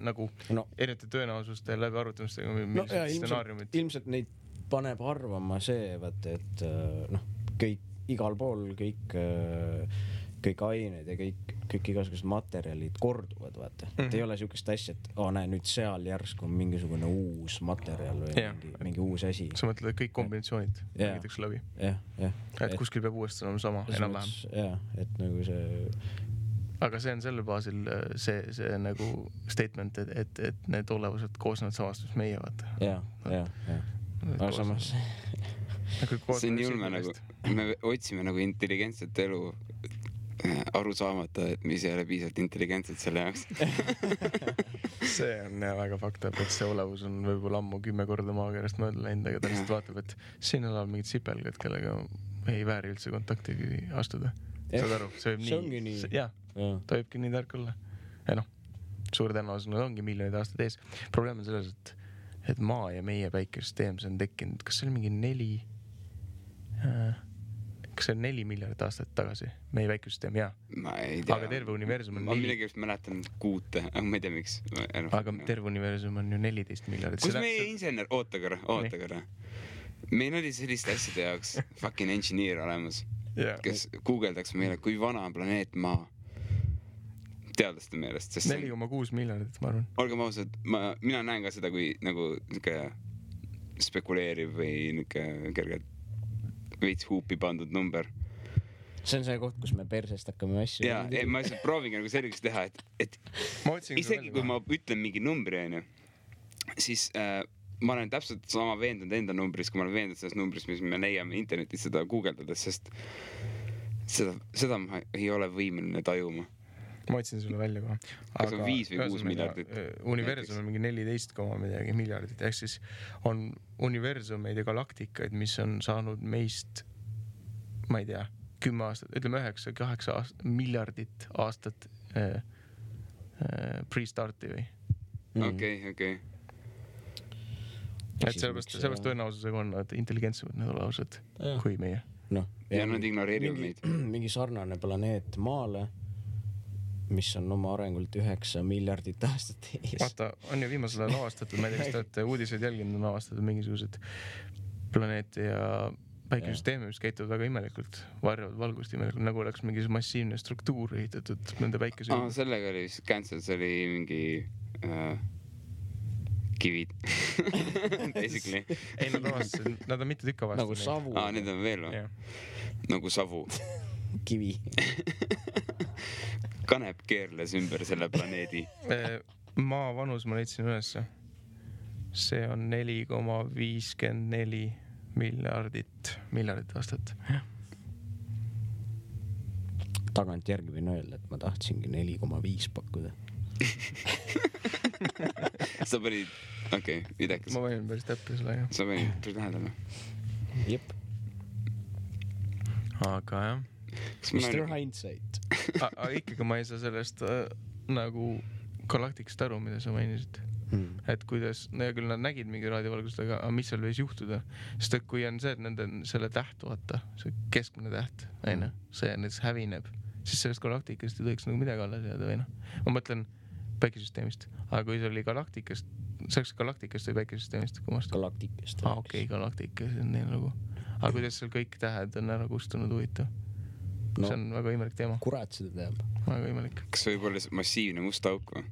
nagu erinevate tõenäosuste läbi arvutamistega, millised stsenaariumid. Ilmselt neid paneb arvama see, et kõik igal pool, kõik ained ja kõik igasugused materjalid korduvad, vaata. Et ei ole siukest asja, et näe, nüüd seal järsku on mingisugune uus materjal või mingi uus asi. Sa mõtled, et kõik kombinatsioonid mängitakse läbi. Et kuskil peab uuesti olema sama, enam-vähem. Jah, et nagu see... Aga see on selle baasil see nagu statement, et need olevused koosnevad samast, mis meie, vaata. Jah. Aga samas... See on julme nagu, me otsime nagu intelligentset elu aru saamata, et mis ei ole piisavalt intelligentset selle jaoks. See on väga fakta, et see olevus on võib-olla ammu 10 korda maakerast mööda läinud, aga ta lihtsalt vaatab, et siin elab mingid sipelgad, kellega ei vääri üldse kontakti astuda. Saad aru? See ongi nii. Jah, ta võibki nii tark olla. Ja suur tõenäosus ongi miljonid aastad ees. Probleem on selles, et maa ja meie päikesüsteem on tekkinud, kas see oli mingi 4 miljardit aastat tagasi, meie väikesüsteem, jaa. Ma ei tea. Aga terve universum on... Ma midagi mäletan kuute, aga ma ei tea, miks. Aga terve universum on ju 14 miljardit. Kus meie insener? Oota korra. Meil oli selliste asjade jaoks fucking engineer olemas, kes guugeldaks meile, kui vana on planeet Maa. Teadlaste meelest. 4,6 miljardit, ma arvan. Olgem ausad, mina näen ka seda, kui nagu spekuleeriv või kergelt veits huupi pandud number. See on see koht, kus me persest hakkame asju. Ja, ma lihtsalt proovingi nagu selgeks teha, et isegi kui ma ütlen mingi numbri, siis ma olen täpselt sama veendunud enda numbris, kui ma olen veendunud selles numbris, mis me leiame internetis seda guugeldades, sest seda ma ei ole võimeline tajuma. Ma otsin sulle välja kohe. Kas on 5 või 6 miljardit? Universum on mingi 14 midagi miljardit. Ehk siis on universumeid ja galaktikaid, mis on saanud meist, ma ei tea, 10 aastat, ütleme 9-8 miljardit aastat pre-starti või? Okei. Et sellepärast tõenäosusega on nad intelligentsemad need olevused kui meie. Ja nad ignoreerivad meid. Mingi sarnane planeet Maale, mis on oma arengult 9 miljardit aastat ees. Vaata, on ju viimasel ajal avastatud, ma ei tea, kas te olete uudiseid jälginud, on avastatud mingisugused planeete ja päikesüsteemi, mis käituvad väga imelikult, varjavad valgust imelikult, nagu oleks mingi massiivne struktuur ehitatud nende päikesüsteemi. Sellega oli vist cancel, see oli mingi kivid. Basically. Ei, nad on mitte tükka vastu. Nagu savu. Need on veel või? Nagu savu. Kivi. Kanep keerles ümber selle planeedi. Maa vanus ma leidsin ülesse. see on 4,54 miljardit aastat. Tagantjärgi võin öelda, et ma tahtsingi 4,5 pakkuda. Sa panid, okei, idekas. Ma võin päris täppi selle, jah. Sa panid päris lähedale. Jep. Aga jah. Mr. Hindsight. Ikkagi ma ei saa sellest nagu galaktikast aru, mida sa mainisid. Et kuidas, no ja küll nad nägid mingi raadiovalgust, aga mis seal võis juhtuda? Sest et kui on see, et nende selle täht, vaata, see keskmine täht, see näiteks hävineb, siis sellest galaktikast ei tohiks nagu midagi alles jääda või noh. Ma mõtlen päikesüsteemist, aga kui see oli galaktikast, see oleks galaktikast või päikesüsteemist? Galaktikast. Okei, galaktikas on nii nagu. Aga kuidas seal kõik tähed on ära kustunud huvitav? No, see on väga imelik teema. Kurat seda teab. Väga imelik. Kas võib olla massiivne must auk või?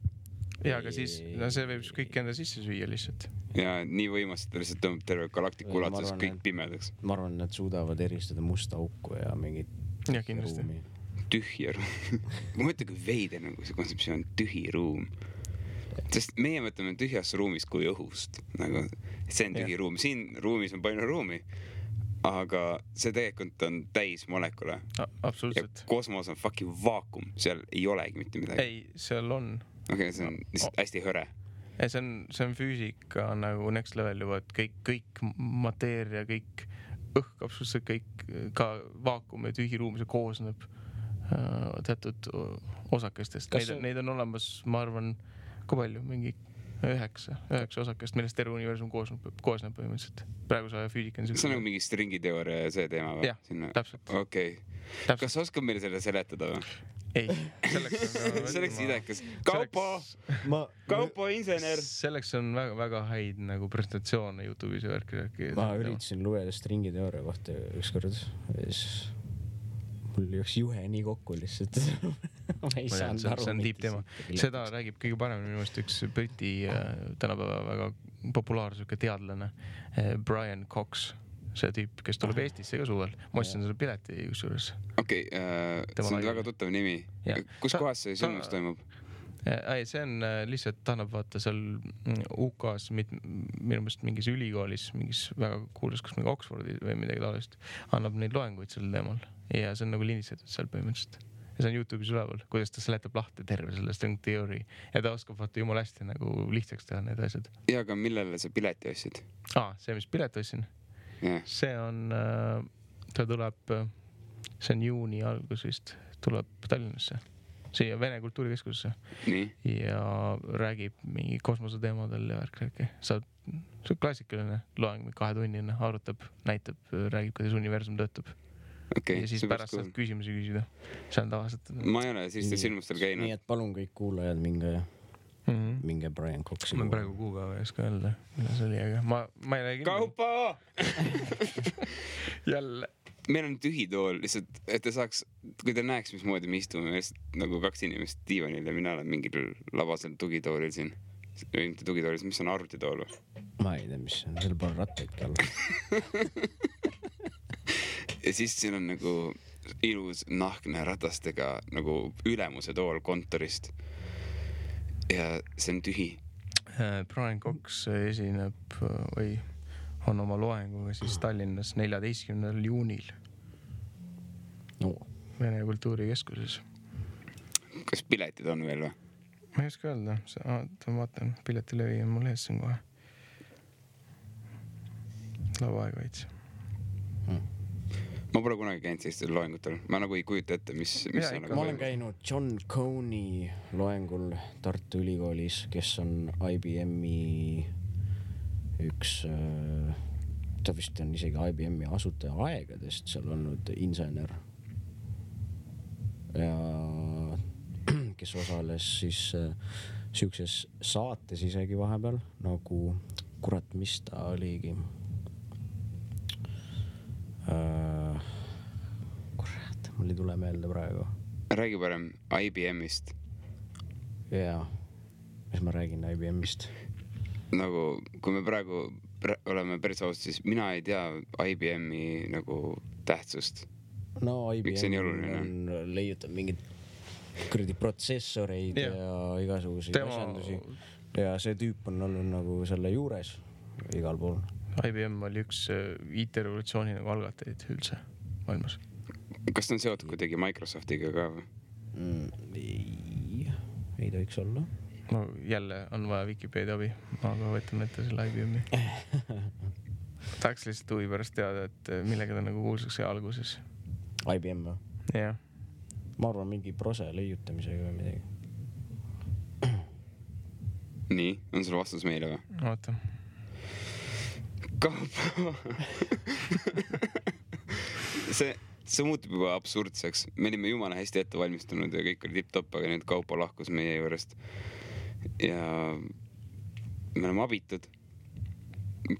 Ja, aga siis no see võib kõik enda sisse süüa lihtsalt. Ja nii võimas, et lihtsalt tõmbab terve galaktiku ulatuses kõik pimedaks. Ma arvan, et nad suudavad eristada musta auku ja mingit ja, kindlasti. ruumi. Tühja ruum. Ma mõtlen, kui veider nagu see kontseptsioon tühi ruum. Sest meie mõtleme tühjast ruumist kui õhust. Nagu, see on tühi ruum. Siin ruumis on palju ruumi. Aga see tegelikult on täis molekule. Absoluutselt. Ja kosmos on fucking vaakum. Seal ei olegi mitte midagi. Ei, seal on. Okei, see on hästi hõre. Ei, see on füüsika nagu next level juba, et kõik mateeria, kõik õhk, absoluutselt kõik, ka vaakum ja tühi ruum, see koosneb teatud osakestest. Neid on olemas, ma arvan, kui palju, mingi 9 osakest, millest terve universum koosneb põhimõtteliselt. Praegu sa füüsika on see on nagu mingi stringiteooria ja see teema või? Jah, täpselt. Okei. Kas sa oskad meile selle seletada või? Ei, selleks idekas. Kaupo insener. Selleks on väga häid nagu presentatsioone YouTube'is ja värki. Ma üritasin lugeda stringiteooria kohta ükskord. Mul jõuks juhe nii kokku lihtsalt. Ma ei saanud aru. See on tiip teema. Seda räägib kõige paremini minu meelest üks Briti tänapäeva väga populaarne teadlane Brian Cox. See tüüp, kes tuleb Eestisse ka suvel. Ma ostsin selle pileti kusjuures. Okei, see on väga tuttav nimi. Kus kohas see sündmus toimub? Ei, see on lihtsalt, ta annab vaata seal UK-s minu meelest mingis ülikoolis, mingis väga kuulus, kas mingi Oxfordi või midagi taolist, annab neid loenguid sel teemal. Ja see on nagu lindistatud seal põhimõtteliselt. Ja see on YouTube'is üleval, kuidas ta seletab lahti terve selle string theory. Ja ta oskab vaata jumala hästi nagu lihtsaks teha need asjad. Ja, aga millele sa pileti ostsid? See, mis pileti ostsin? Yeah. See on, ta tuleb, see on juuni algus vist, tuleb Tallinnasse, siia Vene kultuurikeskusesse. Nii. Ja räägib mingi kosmose teemadel ja värk. See on klassikaline loeng, 2-tunnine, arutab, näitab, räägib, kuidas universum töötab. Okay, ja siis pärast saab küsimusi küsida. See on tavaliselt. Ma ei ole sellistel silmustel käinud. Nii et palun kõik kuulajad minge Brian Coxi. Ma praegu kuupäeva ei oska öelda, mida see oli, aga ma ei räägi. Kaupo! Jälle. Meil on tühi tool, lihtsalt, et ta saaks, kui ta näeks, mismoodi me istume, nagu 2 inimest diivanil ja mina olen mingil labasel tugitoolil siin. Mitte tugitoolil, mis on arvutitool või? Ma ei tea, mis on, seal pole rattaidki all. Ja siis siin on nagu ilus nahkne ratastega nagu ülemuse tool kontorist. Ja see on tühi. Brian Cox esineb või on oma loenguga siis Tallinnas 14. juunil. No. Vene kultuurikeskuses. Kas piletid on veel või? Ma ei oska öelda. Ma vaatan, piletilevi on mul ees siin kohe. Lava aega veits. Ma pole kunagi käinud sellistel loengutel. Ma nagu ei kujuta ette, mis ja, nagu ma olen käinud John Coney loengul Tartu Ülikoolis, kes on IBM-i üks, ta vist on isegi IBM-i asutaja aegadest seal olnud insener. Ja kes osales siis siukses saates isegi vahepeal, nagu kurat, mis ta oligi. Kurat, mul ei tule meelde praegu. Räägi parem IBM-ist. Jaa, mis ma räägin IBM-ist? Nagu, kui me praegu oleme päris ausad, siis mina ei tea IBM-i nagu tähtsust. No IBM on leiutab mingid kuradi protsessoreid ja igasuguseid asjandusi. ja see tüüp on olnud nagu selle juures igal pool. IBM oli üks IT-revolutsiooni nagu algatajaid üldse maailmas. Kas ta on seotud kuidagi Microsoftiga ka või? Ei tohiks olla. No jälle on vaja Wikipedia abi, aga võtan ette selle IBM-i. Tahaks lihtsalt huvi pärast teada, et millega ta nagu kuulsaks alguses. IBM või? Jah. Ma arvan mingi prose leiutamisega või midagi. Nii, on sul vastus meile või? Oota. see muutub juba absurdseks. Me olime jumala hästi ette valmistunud ja kõik oli tipp-topp, aga nüüd Kaupo lahkus meie juurest. Ja me oleme abitud.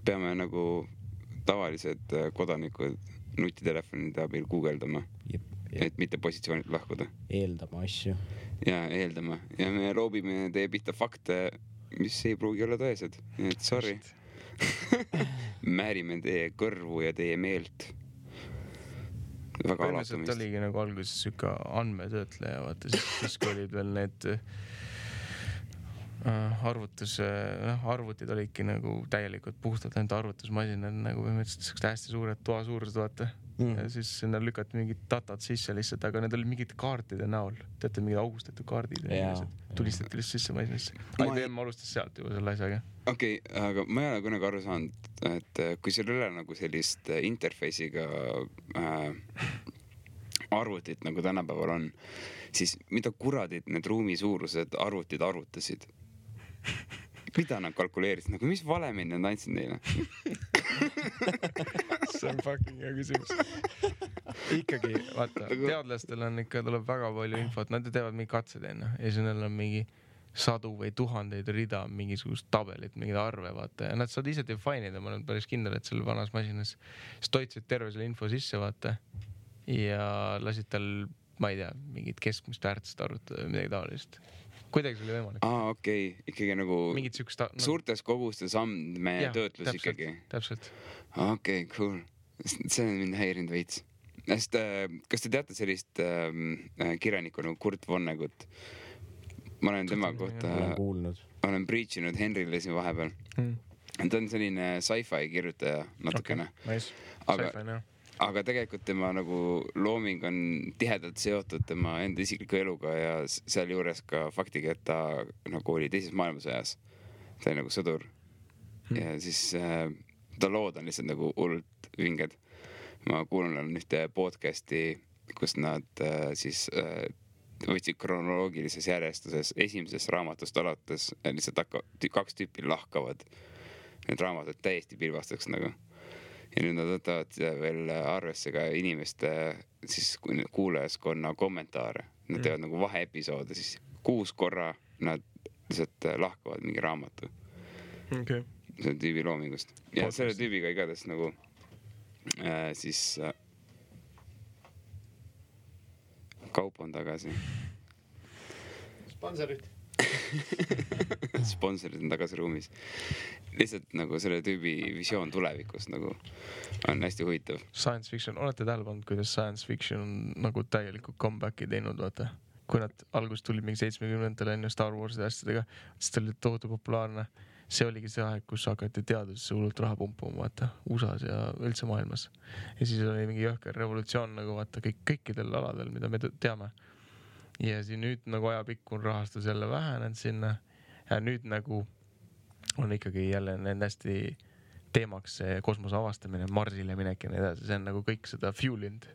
Peame nagu tavalised kodanikud nutitelefonide abil guugeldama, et mitte positsioonilt lahkuda. Eeldama asju. Ja eeldama. Ja me loobime teie pihta fakte, mis ei pruugi olla tõesed. Nii et sorry. Määrime teie kõrvu ja teie meelt. Väga alatumist. Oligi nagu alguses süka andmetöötleja, vaata siis kui olid veel need arvutid olidki nagu täielikult puhtalt ainult arvutusmasinad nagu põhimõtteliselt hästi suured toa suurused, vaata. Ja siis sinna lükati mingid datat sisse lihtsalt, aga need olid mingid kaartide näol. Teate, mingid augustatud kaardid tulistati lihtsalt sisse masinasse. IBM alustas sealt juba selle asjaga. Okei, aga ma ei ole kunagi aru saanud, et kui sul ei ole nagu sellist interface'iga arvutit nagu tänapäeval on, siis mida kuradid need ruumi suurused arvutid arvutasid? Mida nad kalkuleerisid? Nagu mis valemin nad andsid neile? See on fucking hea küsimus. Ikkagi, vaata, teadlastel on ikka, tuleb väga palju infot, nad teevad mingi katsed enne ja siis neil on mingi sadu või tuhandeid rida, mingisugust tabelit, mingid arve, vaata, ja nad saad ise define'ida, ma olen päris kindel, et seal vanas masinas siis toitsid terve selle info sisse, vaata, ja lasid tal, ma ei tea, mingid keskmist väärtust arvutada või midagi taolist. Kuidagi see oli võimalik? Okei. Ikkagi nagu suurtes kogustes andmetöötlus ikkagi. Täpselt. Okei, cool. See on mind häirinud veits. Kas te teate sellist kirjanikku nagu Kurt Vonnegut? Ma olen tema kohta olen preachinud Henrile siin vahepeal. Ta on selline sci-fi kirjutaja natukene. Aga tegelikult tema nagu looming on tihedalt seotud tema enda isikliku eluga ja seal juures ka faktiga, et ta nagu oli teises maailmasõjas. Ta oli nagu sõdur. Ja siis ta lood on lihtsalt nagu hullult vinged. Ma kuulan ühte podcasti, kus nad siis võtsid kronoloogilises järjestuses esimesest raamatust alates lihtsalt kaks tüüpi lahkavad. Need raamatud täiesti pilvastaks nagu. Ja nüüd nad võtavad veel arvesse ka inimeste siis kuulajaskonna kommentaare. Nad teevad nagu vaheepisoode, siis 6 korra nad lihtsalt lahkavad mingi raamatu. Okay. Selle tüübi loomingust. Ja selle tüübiga igatahes nagu siis Kaup on tagasi. Sponsorid on tagasi ruumis. Lihtsalt nagu selle tüübi visioon tulevikus nagu on hästi huvitav. Science fiction, olete tähele pannud, kuidas science fiction on nagu täielikult comebacki teinud, vaata. Kui nad alguses tulid mingi 70-ndatel enne Star Wars'ide asjadega, siis ta oli tohutu populaarne. See oligi see aeg, kus hakati teadusesse hullult raha pumpuma, vaata, USA's ja üldse maailmas. Ja siis oli mingi jõhker revolutsioon nagu vaata kõikidel aladel, mida me teame. Ja siis nüüd nagu ajapikku on rahastus jälle vähenenud sinna ja nüüd nagu on ikkagi jälle need hästi teemaks see kosmose avastamine, Marsile minek ja nii edasi. See on nagu kõik seda fuelind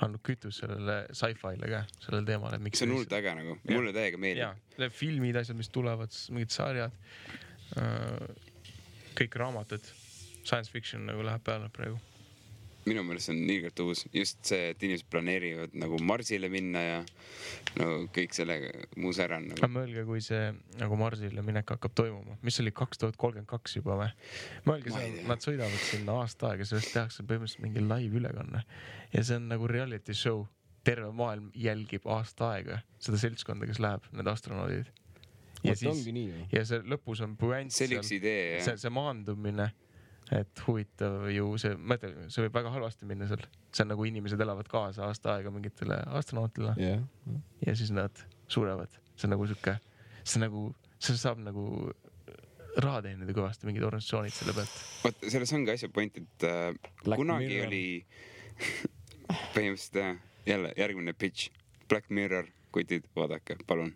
andnud kütus sellele sci-fi'le ka, sellele teemale. See on hullult äge nagu, mulle täiega meeldib. Ja, filmid, asjad, mis tulevad, mingid sarjad, kõik raamatud, science fiction nagu läheb peale praegu. Minu meelest on ilgelt uus. Just see, et inimesed planeerivad nagu Marsile minna ja no, kõik sellega muus ära. Nagu. Mõelge, kui see nagu Marsile minek hakkab toimuma. Mis oli 2032 juba või? Mõelge, nad sõidavad sinna aasta aega, sellest tehakse põhimõtteliselt mingi live ülekanne. Ja see on nagu reality show. Terve maailm jälgib aasta aega seda seltskonda, kes läheb, need astronaudid. Ja, siis, ja see lõpus on puänt seal. Idee, see maandumine. Et huvitav ju see võib väga halvasti minna seal. See on nagu inimesed elavad kaasa aasta aega mingitele astronautile. Ja siis nad surevad. See on nagu see saab nagu raha teenida kõvasti, mingid organisatsioonid selle pealt. Vaat, selles ongi asja point, et kunagi Mirror. Oli põhimõtteliselt jälle järgmine pitch. Black Mirror, kutid, vaadake, palun.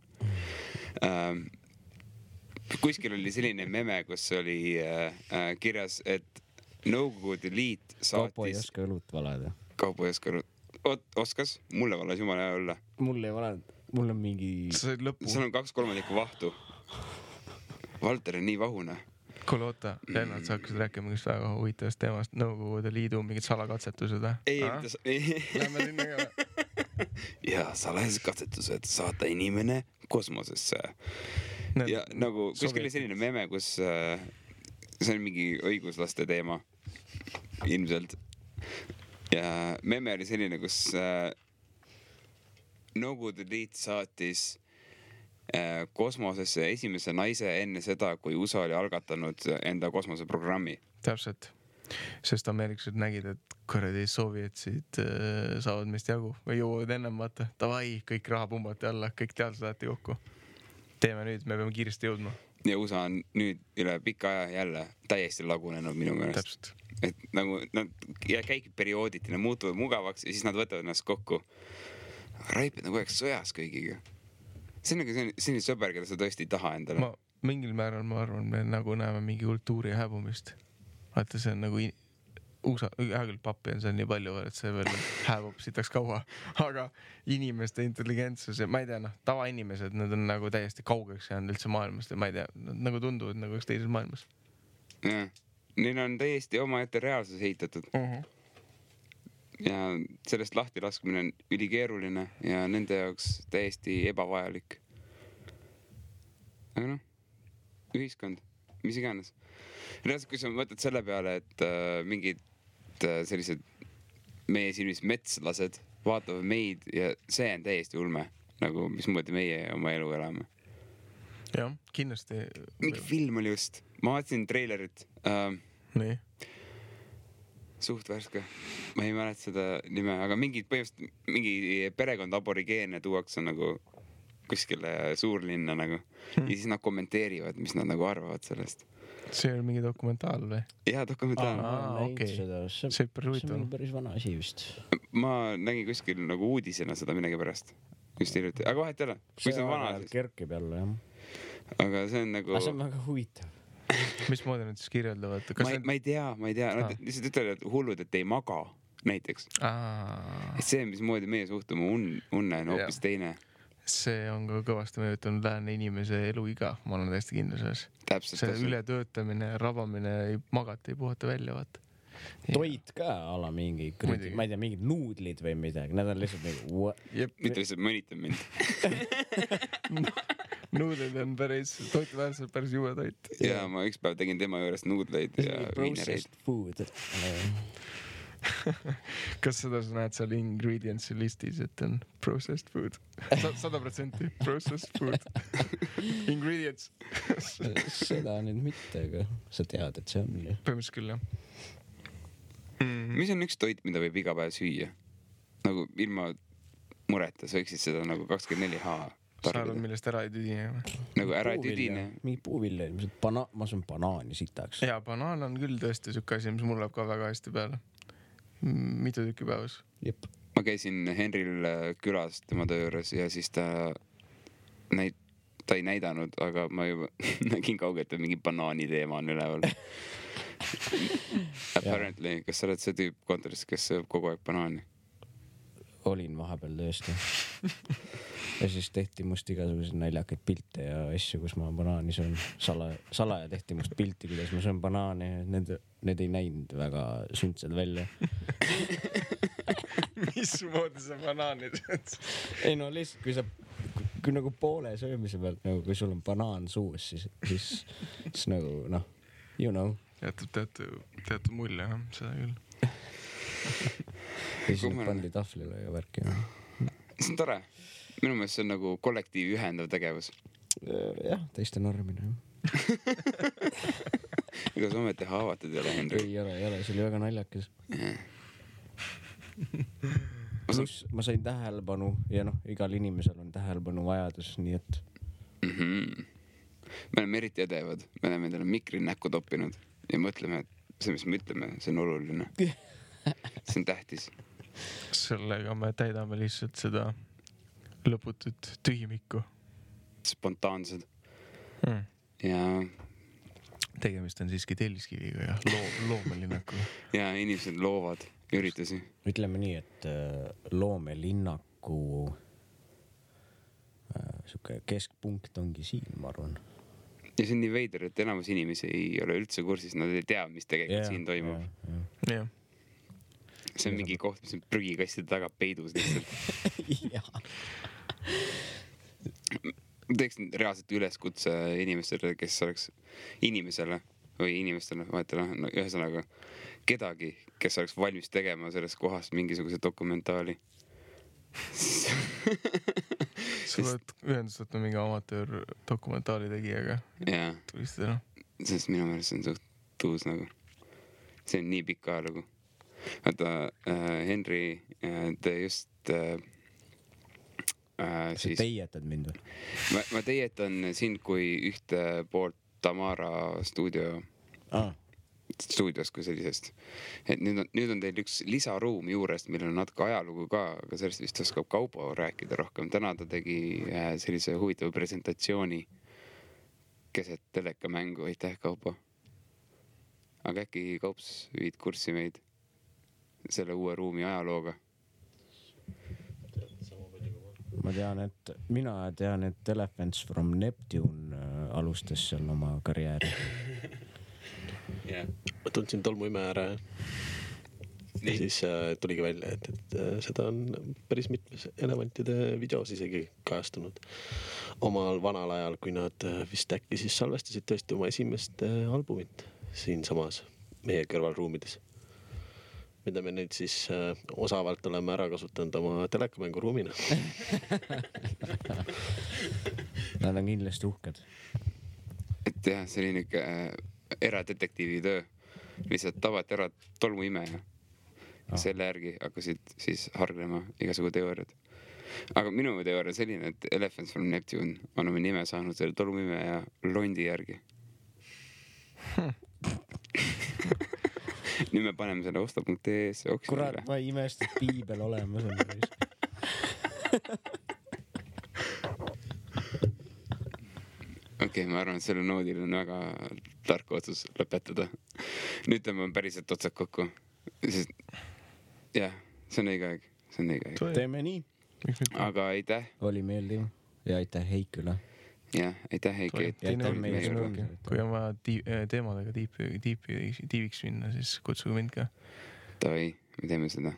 Kuskil oli selline meme, kus oli kirjas, et Nõukogude Liit saatis... Kaupo ei oska õlut valada. Kaupo ei oska õlut. Oskas? Mulle valas jumala hea olla. Mulle ei valanud. Mul on mingi... Seal on 2/3 vahtu. Valter on nii vahune. Kuule, oota, Lennart, sa hakkasid rääkima mingist väga huvitavast teemast, Nõukogude Liidu mingid salakatsetused. Ei. Lähme sinna ka. Ja salakatsetused saata inimene kosmosesse. Ja nagu kuskil oli selline meme, kus see on mingi õiguslaste teema ilmselt. Ja meme oli selline, kus Nõukogude Liit saatis kosmosesse esimese naise enne seda, kui USA oli algatanud enda kosmoseprogrammi. Täpselt. Sest ameeriklased nägid, et kuradi soovjetsid saavad meist jagu või jõuavad ennem vaata. Davai, kõik raha pumbati alla, kõik teadlased saati kokku. Teeme nüüd, me peame kiiresti jõudma. Ja USA on nüüd üle pika aja jälle täiesti lagunenud minu meelest. Täpselt. Et nagu nad käikid periooditi, nad muutuvad mugavaks ja siis nad võtavad ennast kokku. Raipid nagu oleks sõjas kõigiga. See on nagu selline sõber, keda sa tõesti ei taha endale. Mingil määral ma arvan, me nagu näeme mingi kultuuri hääbumist. Vaata, see on nagu hea küll pappi on seal nii palju, et see veel hääbub sitaks kaua. Aga inimeste intelligentsus ja ma ei tea, tavainimesed, nad on nagu täiesti kaugeks jäänud üldse maailmast ja ma ei tea, nad nagu tunduvad nagu üks teises maailmas. Ja, neil on täiesti omaette reaalsus ehitatud. Ja sellest lahti laskmine on ülikeeruline ja nende jaoks täiesti ebavajalik. Aga ühiskond, mis iganes. Reaalselt, kui sa mõtled selle peale, et mingid sellised meie silmis metslased vaatavad meid ja see on täiesti ulme, nagu mismoodi meie oma elu elame. Jah, kindlasti. Mingi film oli just. Ma vaatasin treilerit. Nii. Suht värske. Ma ei mäleta seda nime, aga mingi perekond aborigeene tuuakse nagu kuskile suurlinna nagu. Ja siis nad kommenteerivad, mis nad nagu arvavad sellest. See on mingi dokumentaal või? Jaa, dokumentaal. See on päris vana asi vist. Ma nägin kuskil nagu uudisena seda midagi pärast. Just hiljuti. Aga vahet ei ole. Kui see on vana, siis... Kerkib jälle, jah. Aga see on nagu... see on väga huvitav. Mismoodi nad siis kirjeldavad? Ma ei tea. Nad lihtsalt ütlevad, et hullud, et ei maga näiteks. See, mismoodi meie suhtume unne on hoopis teine. See on ka kõvasti mõjutanud lääne inimese eluiga. Ma olen täiesti kindel selles. See ületöötamine, rabamine, magata, ei puhata välja, vaata. Toit ka ala mingi, ma ei tea, mingid nuudlid või midagi. Need on lihtsalt mingi... Mitte lihtsalt mõnitab mind. Nuudlid on päris, toituväärselt päris juue toit. Ja ma üks päev tegin tema juurest nuudleid ja viinereid. Processed food. Kas seda sa näed seal ingredients listis, et on processed food? 100% processed food. Ingredients. Seda nüüd mitte, aga sa tead, et see on. Põhimõtteliselt küll, jah. Mis on üks toit, mida võib iga päev süüa? Nagu ilma mureta, sa võiksid seda nagu 24H sa arvad, millest ära ei tüdine? Nagu ära ei tüdine. Mingi puuvilja, ma söön banaani sitaks. Jaa, banaan on küll tõesti sükke asi, mis mul läheb ka väga hästi peale. Mitu tükki päevas. Jep. Ma käisin Henril külas tema töö juures ja siis ta ei näidanud, aga ma juba nägin kaugelt, et mingi banaani teema on üleval. Apparently, kas sa oled see tüüp kontoris, kes sööb kogu aeg banaani? Olin vahepeal tõesti. Ja siis tehti must igasuguseid naljakaid pilte ja asju, kus ma banaani söön. Salaja tehti must pilti, kuidas ma söön banaani. Need ei näinud väga sündsed välja. Mismoodi sa banaani sööd? Ei no lihtsalt, kui nagu poole söömise pealt, nagu kui sul on banaan suus, siis nagu you know. Teatud mulje, seda küll. Ja siis nüüd pandi tahvlile ja värki. See on tore. Minu meelest see on nagu kollektiivi ühendav tegevus. Jah, teiste normine. Ega sa ometi haavatud ei ole, Henri? Ei ole, see oli väga naljakas. Ma sain tähelepanu ja igal inimesel on tähelepanu vajadus, nii et... me oleme eriti edevad, me oleme endale mikri näkku toppinud ja mõtleme, et see, mis me ütleme, see on oluline. See on tähtis. Sellega me täidame lihtsalt seda lõputut tühimikku. Spontaansed. Ja tegemist on siiski telliskiviga ja loomelinnakuga. Ja inimesed loovad üritusi. Ütleme nii, et loomelinnaku siuke keskpunkt ongi siin, ma arvan. Ja see on nii veider, et enamus inimesi ei ole üldse kursis, nad ei tea, mis tegelikult siin toimub. Yeah. See on mingi koht, mis on prügikastide taga peidus lihtsalt. Teeks reaalselt üleskutse inimestele, kes oleks inimesele, vahetele, no ühesõnaga kedagi, kes oleks valmis tegema sellest kohast mingisuguse dokumentaali. Sa oled ühendust võtnud mingi amatöör dokumentaali tegijaga. Jaa. Tulistada. Sest minu meelest see on suht tuus nagu. See on nii pikk ajalugu. Vaata, Henry, te just sa teietad mind või? Ma teietan sind kui ühte poolt Tamara stuudios kui sellisest. Et nüüd on teil üks lisaruum juurest, millel on natuke ajalugu ka, aga sellest vist oskab Kaupo rääkida rohkem. Täna ta tegi sellise huvitava presentatsiooni keset telekamängu. Aitäh, Kaupo. Aga äkki Kaups viid kurssi meid selle uue ruumi ajalooga? Mina tean, et Elephants from Neptune alustas seal oma karjääri. Ma tundsin tolmuime ära ja siis tuligi välja, et seda on päris mitmes elevantide videos isegi kajastunud omal vanal ajal, kui nad vist äkki siis salvestasid tõesti oma esimest albumit siin samas meie kõrvalruumides, mida me nüüd siis osavalt oleme ära kasutanud oma telekamänguruumina. Nad on kindlasti uhked. Et jah, selline eradetektiivi töö. Lihtsalt tabati ära tolmuimeja. Selle järgi hakkasid siis harglema igasugu teooriad. Aga minu teooria on selline, et Elephants from Neptune on oma nime saanud selle tolmuimeja londi järgi. Nüüd me paneme selle osta.ee-s oksjonile. Kurat, ma ei imest, et piibel olemas on. Okei, ma arvan, et selle noodil on väga tark otsus lõpetada. Nüüd tõmbame päriselt otsad kokku. Sest, jah, see on õige aeg. Teeme nii. Aga aitäh. Oli meeldiv. Ja aitäh Heikule. Jah, aitäh Heiki. Kui on vaja teemadega tiiviks minna, siis kutsuge mind ka. Tavai, me teeme seda.